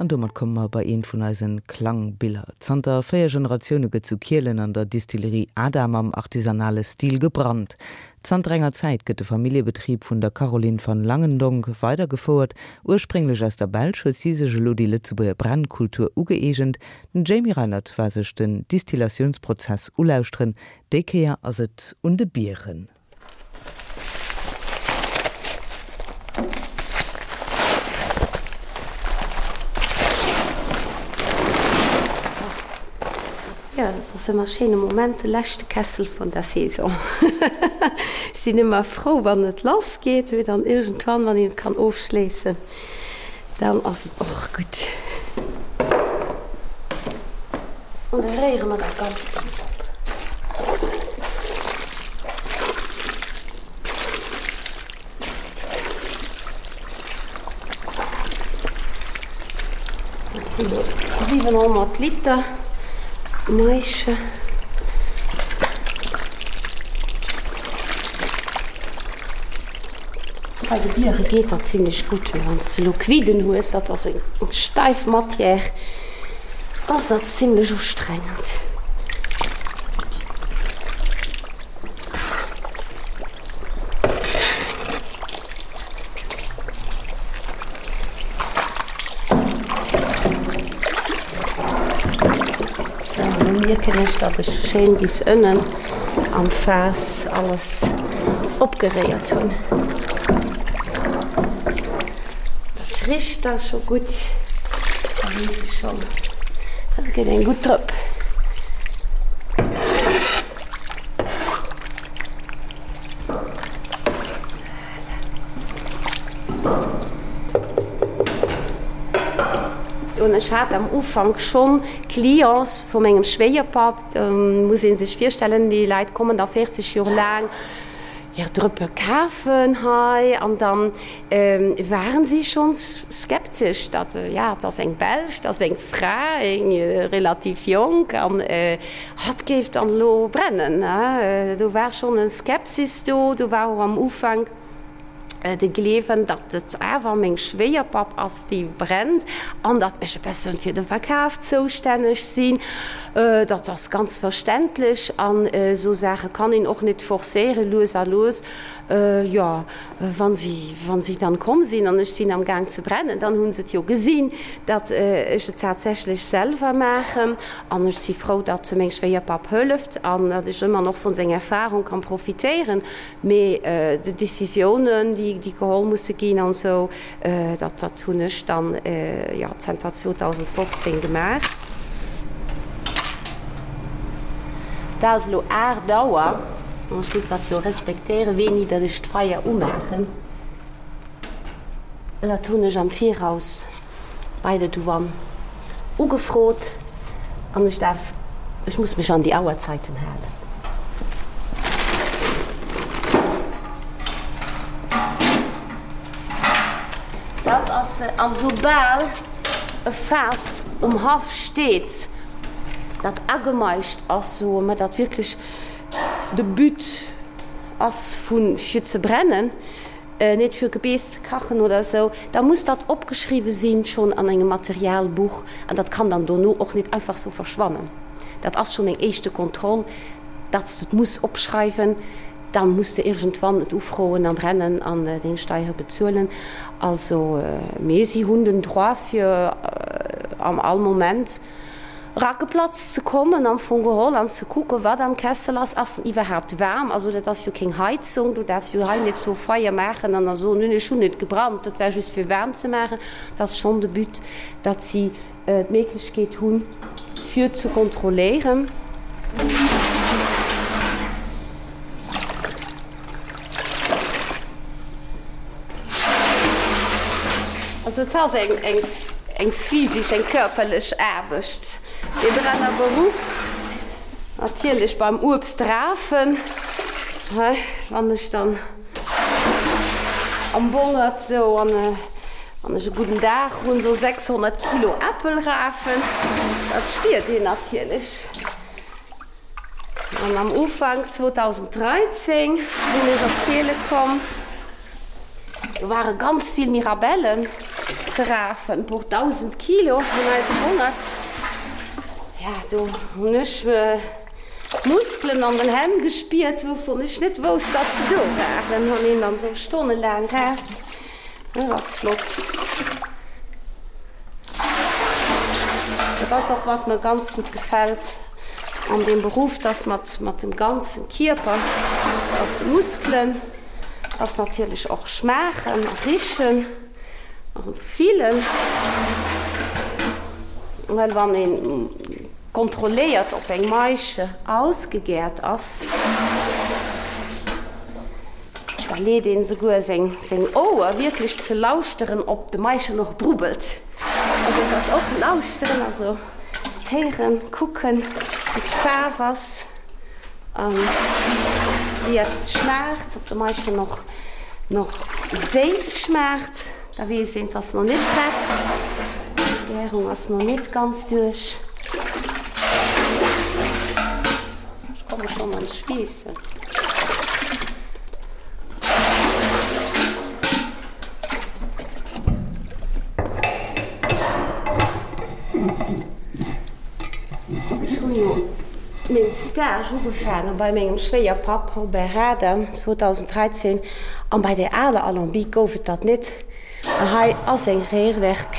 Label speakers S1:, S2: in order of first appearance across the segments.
S1: An domat komme mer bei eent vun eisen Klangbiller. Zanter 4 Generatioune gëtt zu Kielen an der Distillerie Adam am artisanale Stil gebrannt. Zanter enger Zäit gëtt de Familljebetrib vun der Caroline van Langendonck weidergefouert. Ursprénglech aus der Belsch huet si sech elo déi Lëtzebuerger Brennkultur ugëeegent. Den Jamie Reinert war sech den Distillatiounsprozess ulauschteren. Déi Kéier ass et un de Bieren.
S2: Jo, dat ass ëmmer e schéine Moment, de leschte Kessel vun der Saison. Ech sinn ëmmer frou, wann et lass geet, mee dann iergendwann, wann een et kann ofschléissen, dann ass et och gutt. An da réiere mer dat Ganzt dann op. Dat sinn elo 700 Liter Maische. Bei de Biere geet dat zimlech gutt, mee wann s de elo Quidden hues, dat ass eng steif Matière, ass dat zimlech ustrengend. Elo mierken ech, datt ech schéin bis ënnen am Faass alles opgeréiert hunn. Dat richt da scho gutt, da weess ech schonn, dat gëtt eng gutt Drëpp. Voilà. Ech hat am Ufank schonn Clients vu mengem Schwéierpapp, muss ee sech virstellen, déi Leit kommen da 40 Joer laang hir Drëppe kafen hei an dann waren si schonns skeptesch, datt, ja, et ass eng Belsch, et ass eng Fra, eng relativ jonk an hatt géif dann elo brennen. Do war schonn e Skepsis do, do war och am Ufank de Gleewen, datt et awer meng Schwéierpapp ass, déi brennt an datt ech e bëssen fir de Verkaf zoustänneg sinn. Dat ass ganz verständlech an esou Saache kann een och net forcéieren. Lues a lues, jo, wa si, wa si dann komm sinn an ech sinn am Gaang ze brennen, dann hu se et jo gesinn, datt ech et tatsächlech selwer maachen. An ech si frou, datt meng Schwéierpapp hëlleft an datt ech ëmmer nach vun senger Erfahrung kann profitéieren. Mee déi Décisiounen, déi geholl musse ginn an esou, dat, dat hunn ech dann, jo, zanter 2015 gemaach. Et ass elo 8 Auer an ech muss dat jo respektéieren, wéini datt ech d'Feier umaachen. Dat hunn ech am Viraus bei der Douane ugefrot an ech darf, ech muss mech an déi Auerzeiten halen. Dat ass se. A soubal e Faass um Haff steet, dat agemaischt ass, soe mer, dat wierklech de But ass vu fir ze brennen, net fir Gebeess ze kachen oder esou, da muss dat opgeschriwwe sinn, schonn an engem Materialbuch, an dat kann dann dono och net einfach sou verschwannen. Dat ass schonn eng éischte Kontroll, datt s de et muss opschreiwen, da muss de iergendwann et ufroen a brennen an deng Steiere bezuelen. Also, mee si hunn den Droit fir am all Moment Rackeplatz ze kommen am Fong geholl an ze kucken, wat am Kessel ass. Ass en iwwerhaapt waarm? Also dat ass jo keng Heizung, du däerfs jo hei net sou Feier maachen an da soen, nun ech hunn net gebrannt, dat war just fir waarm ze maachen. Dat ass schonn de But, datt si d'Méiglechkeet hunn, fir ze kontrolléieren. Also et ass eng, eng, eng physisch, eng körperlech Aarbecht, dee Brennerberuff. Natierlech beim Uebst rafen, hei, wann ech dann am Bongert sou an, wann ech e gudden Dag hunn, sou 600 Kilo Äppel rafen, dat spiert een natierlech. An am Ufank 2013 sinn ech op Kiele komm. Do ware ganz vill Mirabellen. ze rafen, puer 1.000 Kilo an eisem Bongert. Ja, do hunn ech Muskelen an den Hänn gespiert, wouvun ech net wousst, datt se do waren. Wann een dann esou stonnelaang raaft, dat ass flott. Dat ass och, wat mer ganz gutt gefält an deem Beruff, dass mat mat dem ganzen Kierper, dass de Muskelen, dass natierlech och schmaachen a richen a fillen, well wann een kontrolléiert, ob eng Maische ausgegäert ass, da leet een souguer seng seng Ouer wierklech ze lauschteren, ob de Maischen och brubbelt. Also et ass och lauschteren, also héieren, kucken, wéi d'Faarf ass a wéi eppes schmaacht, ob de Maischen och nach séiss schmaacht. Da weess een, 't ass nach net prett, d'Gärung ass nach net ganz duerch. Ech komme schonn an d'Schweessen. Ech hunn jo meng Stage ugefaange bei mengem Schwéierpapp Robert Rader 2013 an bei der aler Alambic gouf et dat net. A hei ass eng Rührwerk.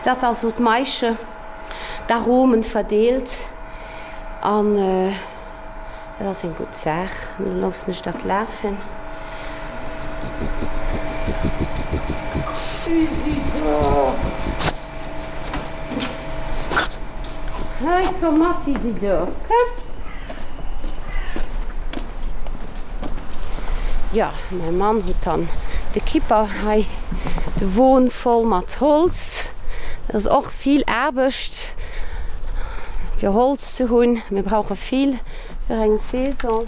S2: Dat ass esou d'Maische, d'Aromen verdeelt an dat ass eng gutt Saach. Elo loossen ech dat lafen. Isidor! Hei, komm mat, Isidor, komm! Jo, mäi Mann huet dann de Kipper hei, de Won voll mat Holz. Dat ass och vill Aarbecht, fir Holz ze hunn. Mir brauche vill fir eng Saison.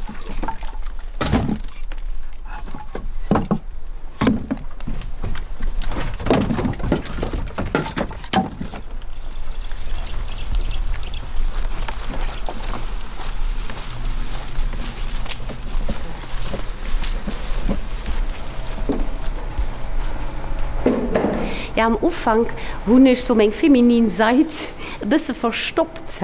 S2: Ja, am Ufank hunn ech sou meng feminin Sait e bësse verstoppt.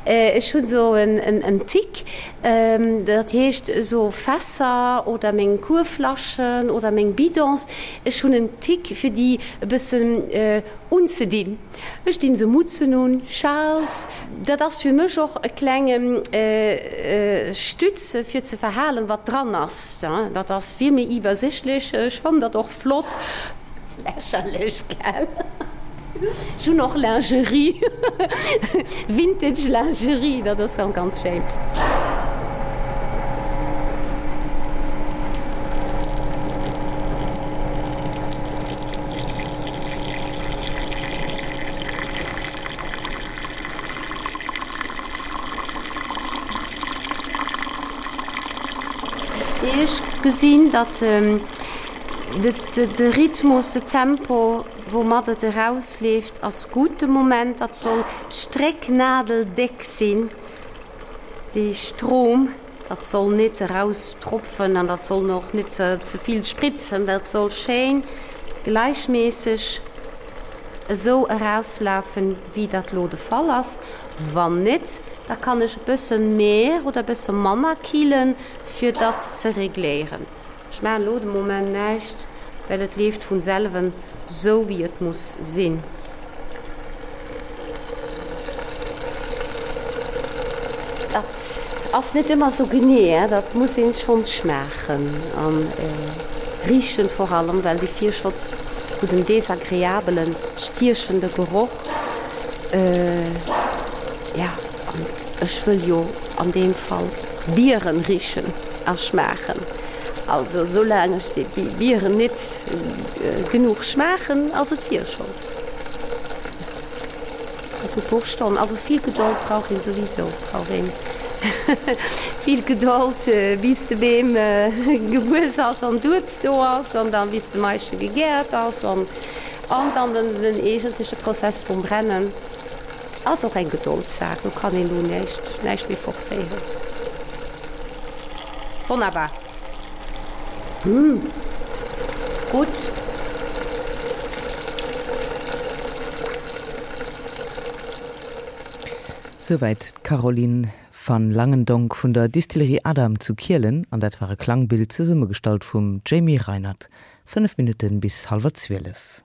S2: Ech hunn sou en Tic, dat heescht esou Fässer oder meng Kuerflaschen oder meng Bidons, ech hunn en Tic fir déi e bëssen unzedinn. Ech dinn se Mutzen un, Schals, dat ass fir mech och e klenge Stütz fir ze verhalen wat dran ass. Dat ass vill méi iwwersichtlech, ech fannen dat och flott. Lächerlech, gell? Ech hunn och Lingerie, Vintage Lingerie, dat ass ganz, ganz schéin. Ech gesinn, datt de Rhythmus, de Tempo, woumat et erausleeft, ass gutt de Moment. Dat soll strécknadeldéck sinn, dee Strom. Dat soll net eraustropfen an dat soll och net ze vill spritzen. Dat soll schéin gläichméisseg esou erauslafen, wéi dat lo de Fall ass. Wann net, da kann ech e bësse méi oder e bësse manner killen, fir dat ze regléieren. Ech maachen elo de Moment näischt, well et leeft vun selwen sou wéi et muss sinn. Dat ass net ëmmer sou genee, dat muss een schonn schmaachen an richen vor allem, well déi Virschotz huet en desagreabelen, stiechende Geroch. Ja, an ech wëll jo an deem Fall Bieren richen a schmaachen. Also soulaang ech déi Bieren nit genuch schmaachen, ass et Virscholz. Also e puer Stonnen, also vill Gedold brauch een souwisou, brauch een vill Gedold bis de Beem gewuess ass an d'Uebst do ass an dann bis de Maische gegäert ass an dann den eegentleche Prozess vum Brennen. Ass och eng Gedoldssaach, do kann een elo näischt, näischt méi forcéieren. Wonnerbar. Hm, gutt.
S1: Souwäit d'Caroline van Langendonck vun der Distillerie Adam zu Kielen an dat war e Klangbild zesummegestallt vum Jamie Reinert. 5 Minutten bis hallwer 12.